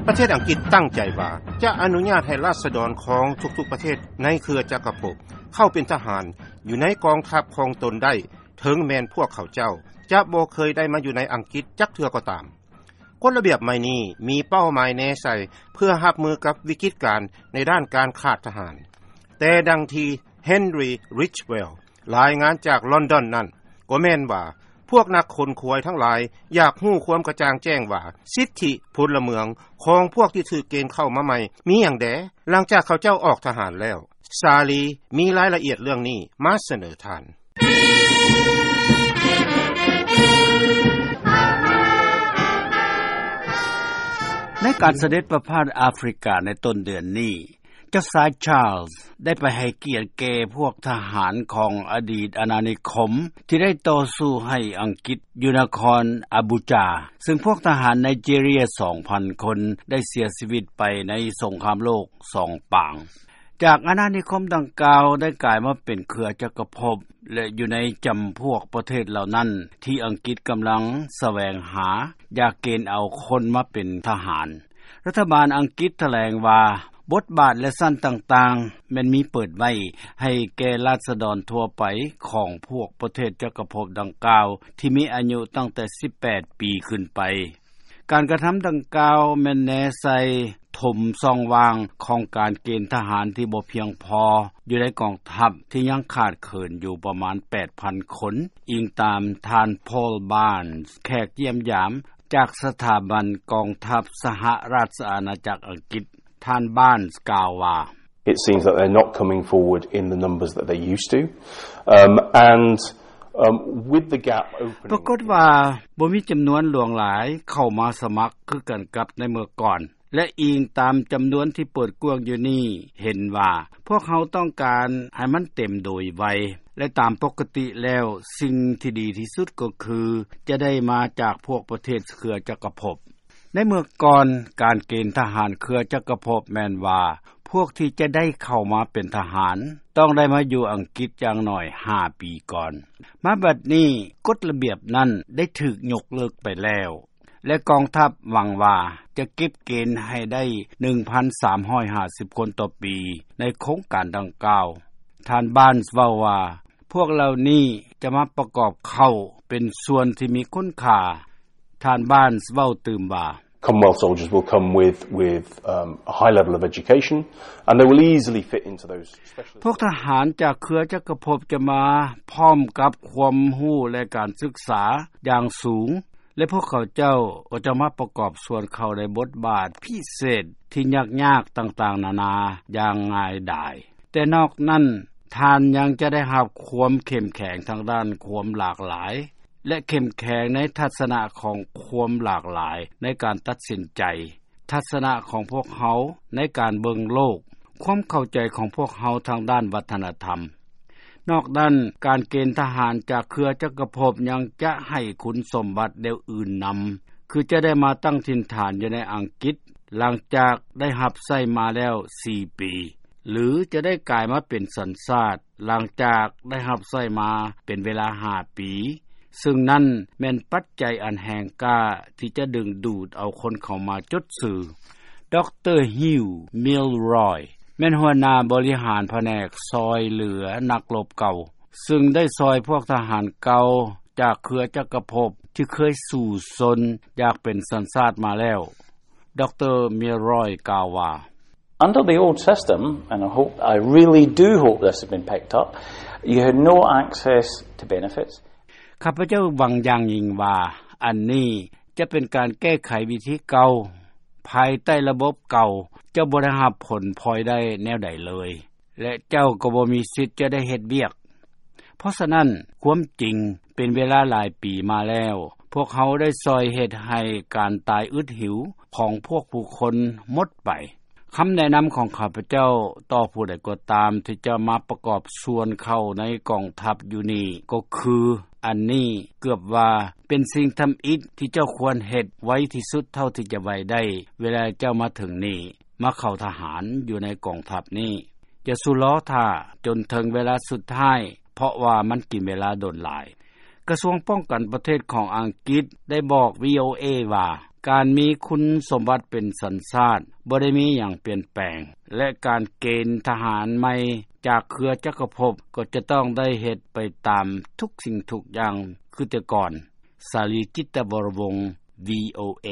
ປະເທດອັງກິດຕັ້ງໃຈວ່າ ຈະອະນຸຍາດໃຫ້ລາຊະດອນຂອງທຸກໆປະເທດໃນເຄືອຈັກກະພົບ ເຂົ້າເປັນທະຫານຢູ່ໃນກອງທັບຂອງຕົນໄດ້ ເຖິງແມ່ນພວກເຂົາເຈົ້າຈະບໍ່ເຄີຍໄດ້ມາຢູ່ໃນອັງກິດຈັກເທື່ອກໍຕາມ. ກົດລະບຽບໃໝ່ນີ້ມີເປົ້າໝາຍແນໃສ່ເພື່ອຮັບມືກັບວິກິດການໃນດ້ານການຂາດທະຫານ. ແຕ່ດັ່ງທີ່ Henry Ridgwell ລາຍງານຈາກລອນດອນນັ້ນ ກໍແມ່ນວ່າ ພວກນັກຂົນຂວາຍທັງຫຼາຍຢາກຮູ້ຄວາມກະຈ່າງແຈ້ງວ່າ ສິດທິພົນລະເມືອງຂອງພວກທີ່ຖືກເກນເຂົ້າມາໃໝ່ມີຫຍັງແດ່ ຫຼັງຈາກເຂົາເຈົ້າອອກທະຫານແລ້ວ. ສາລີມີລາຍລະອຽດເລື່ອງນີ້ມາສະເໜີທ່ານ. ໃນການສະເດັດປະພາດອາຟຣິກາໃນຕົ້ນເດືອນນີ້ ເຈົ້າຊາຍ Charles ໄດ້ໄປໃຫ້ກຽດແກ່ພວກທະຫານຂອງອະດີດອານານິຄົມ ທີ່ໄດ້ຕໍ່ສູ້ໃຫ້ອັງກິດຢູ່ນະຄອນອາບູຈາ ຊຶ່ງພວກທະຫານໄນເຈເຣຍສອງພັນຄົນໄດ້ເສຍຊີວິດໄປໃນສົງຄາມໂລກສອງປາງ. ຈາກອານານິຄົມດັ່ງກ່າວໄດ້ກາຍມາເປັນເຄືອຈັກກະພົບ ແລະ ຢູ່ໃນຈຳພວກປະເທດເຫຼົ່ານັ້ນທີ່ອັງກິດກຳລັງສະແຫວງຫາຢາກເກນເອົາຄົນມາເປັນທະຫານ. ລັດຖະບານອັງກິດຖະແຫຼງວ່າ ບົດບາດ ແລະ ຊັ້ນຕ່າງໆ ແມ່ນມີເປີດໄວ້ໃຫ້ແກ່ລາຊະດອນທົ່ວໄປຂອງພວກປະເທດຈັກກະພົບດັ່ງກ່າວ ທີ່ມີອາຍຸຕັ້ງແຕ່ສິບແປດປີຂຶ້ນໄປ. ການກະທຳດັ່ງກ່າວແມ່ນແນໃສ່ຖົມຊ່ອງວ່າງຂອງການເກນທະຫານທີ່ບໍ່ພຽງພໍຢູ່ໃນກອງທັບທີ່ຍັງຂາດເຂີນຢູ່ປະມານແປດພັນຄົນ, ອີງຕາມທ່ານ Paul Barnes ແຂກຢ້ຽມຢາມຈາກສະຖາບັນກອງທັບສະຫະລາຊະອານາຈັກອັງກິດ. ທ່ານ Barnes ກ່າວວ່າ It seems that they're not coming forward in the numbers that they used to. Um, and, um, with the gap opening ປາກົດວ່າບໍ່ມີຈຳນວນຫຼວງຫຼາຍເຂົ້າມາສະໝັກຄືກັນກັບໃນເມື່ອກ່ອນ ແລະ ອີງຕາມຈຳນວນທີ່ເປີດກວ້າງຢູ່ນີ້ ເຫັນວ່າພວກເຮົາຕ້ອງການໃຫ້ມັນເຕັມໂດຍໄວ ແລະ ຕາມປົກກະຕິແລ້ວ ສິ່ງທີ່ດີທີ່ສຸດກໍຄືຈະໄດ້ມາຈາກພວກປະເທດເຄືອຈັກກະພົບ. ໃນເມື່ອກ່ອນ ການເກນທະຫານເຄືອຈັກກະພົບແມ່ນວ່າ ພວກທີ່ຈະໄດ້ເຂົ້າມາເປັນທະຫານ ຕ້ອງໄດ້ມາຢູ່ອັງກິດຢ່າງໜ້ອຍຫ້າປີກ່ອນ. ມາບັດນີ້ ກົດລະບຽບນັ້ນໄດ້ຖືກຍົກເລີກໄປແລ້ວ ແລະ ກອງທັບຫວັງວ່າຈະເກັບເກນໃຫ້ໄດ້ໜຶ່ງພັນສາມຮ້ອຍຫ້າສິບຄົນຕໍ່ປີໃນໂຄງການດັ່ງກ່າວ. ທ່ານ Barnes ເວົ້າວ່າ ພວກເຫຼົ່ານີ້ຈະມາປະກອບເຂົ້າເປັນສ່ວນທີ່ມີຄຸນຄ່າ. ທ່ານ Barnes ເວົ້າຕື່ມວ່າ Commonwealth soldiers will come with, with, um, a high level of education, and they will easily fit into those specialist ພວກທະຫານຈາກເຄືອຈັກກະພົບຈະມາພ້ອມກັບຄວາມຮູ້ ແລະ ການສຶກສາຢ່າງສູງ ແລະ ພວກເຂົາເຈົ້າກໍຈະມາປະກອບສ່ວນເຂົ້າໃນບົດບາດພິເສດທີ່ຍາກໆຕ່າງໆນານາຢ່າງງ່າຍດາຍ. ແຕ່ນອກນັ້ນ ທ່ານຍັງຈະໄດ້ຮັບຄວາມເຂັ້ມແຂງທາງດ້ານຄວາມຫຼາກຫຼາຍ ແລະ ເຂັ້ມແຂງໃນທັດສະນະຂອງຄວາມຫຼາກຫຼາຍໃນການຕັດສິນໃຈ, ທັດສະນະຂອງພວກເຮົາໃນການເບິ່ງໂລກ, ຄວາມເຂົ້າໃຈຂອງພວກເຮົາທາງດ້ານວັດທະນະທຳ. ນອກນັ້ນ, ການເກນທະຫານຈາກເຄືອຈັກກະພົບຍັງຈະໃຫ້ຄຸນສົມບັດແນວອື່ນນຳ, ຄືຈະໄດ້ມາຕັ້ງຖິ່ນຖານຢູ່ໃນອັງກິດ ຫຼັງຈາກໄດ້ຮັບໃຊ້ມາແລ້ວສີ່ປີ, ຫຼື ຈະໄດ້ກາຍມາເປັນສັນຊາດ ຫຼັງຈາກໄດ້ຮັບໃຊ້ມາເປັນເວລາຫ້າປີ, ຊຶ່ງນັ້ນແມ່ນປັດໄຈອັນແຮງກ້າທີ່ຈະດຶງດູດເອົາຄົນເຂົ້າມາຈົດຊື່. ດຣ. Hugh Milroy ແມ່ນຫົວໜ້າບໍລິຫານພະແນກຊ່ອຍເຫຼືອນັກລົບເກົ່າ, ຊຶ່ງໄດ້ຊ່ອຍພວກທະຫານເກົ່າຈາກເຄືອຈັກກະພົບທີ່ເຄີຍສູ້ຊົນຢາກເປັນສັນຊາດມາແລ້ວ. ດຣ. Milroy ກ່າວວ່າ Under the old system, and I hope, I really do hope this has been picked up, you had no access to benefits. ຂ້າພະເຈົ້າຫວັງຢ່າງຍິ່ງວ່າ ອັນນີ້ຈະເປັນການແກ້ໄຂວິທີເກົ່າ. ພາຍໃຕ້ລະບົບເກົ່າ ເຈົ້າບໍ່ໄດ້ຮັບຜົນພອຍໄດ້ແນວໃດເລີຍ ແລະ ເຈົ້າກໍບໍ່ມີສິດຈະໄດ້ເຮັດວຽກ. ເພາະສະນັ້ນ, ຄວາມຈິງ, ເປັນເວລາຫຼາຍປີມາແລ້ວ, ພວກເຮົາໄດ້ຊ່ອຍເຮັດໃຫ້ການຕາຍອຶດຫິວຂອງພວກຜູ້ຄົນໝົດໄປ. ຄຳແນະນຳຂອງຂ້າພະເຈົ້າຕໍ່ຜູ້ໃດກໍຕາມທີ່ຈະມາປະກອບສ່ວນເຂົ້າໃນກອງທັບຢູ່ນີ້ກໍຄື, ອັນນີ້ເກືອບວ່າເປັນສິ່ງທຳອິດທີ່ເຈົ້າຄວນເຮັດໄວທີ່ສຸດເທົ່າທີ່ຈະໄວໄດ້ ເວລາເຈົ້າມາເຖິງນີ້, ມາເຂົ້າທະຫານຢູ່ໃນກອງທັບນີ້. ຢ່າສູ່ລໍຖ້າຈົນເຖິງເວລາສຸດທ້າຍ, ເພາະວ່າມັນກິນເວລາດົນຫຼາຍ. ກະຊວງປ້ອງກັນປະເທດຂອງອັງກິດໄດ້ບອກ ວີໂອເອ ວ່າ ການມີຄຸນສົມບັດເປັນສັນຊາດ ບໍ່ໄດ້ມີຫຍັງປ່ຽນແປງ ແລະ ການເກນທະຫານໃໝ່ຈາກເຄືອຈັກກະພົບ ກໍຈະຕ້ອງໄດ້ເຮັດໄປຕາມທຸກສິ່ງທຸກຢ່າງຄືແຕ່ກ່ອນ. ສາລີ ຈິດຕະວໍລະວົງ ວີໂອເອ.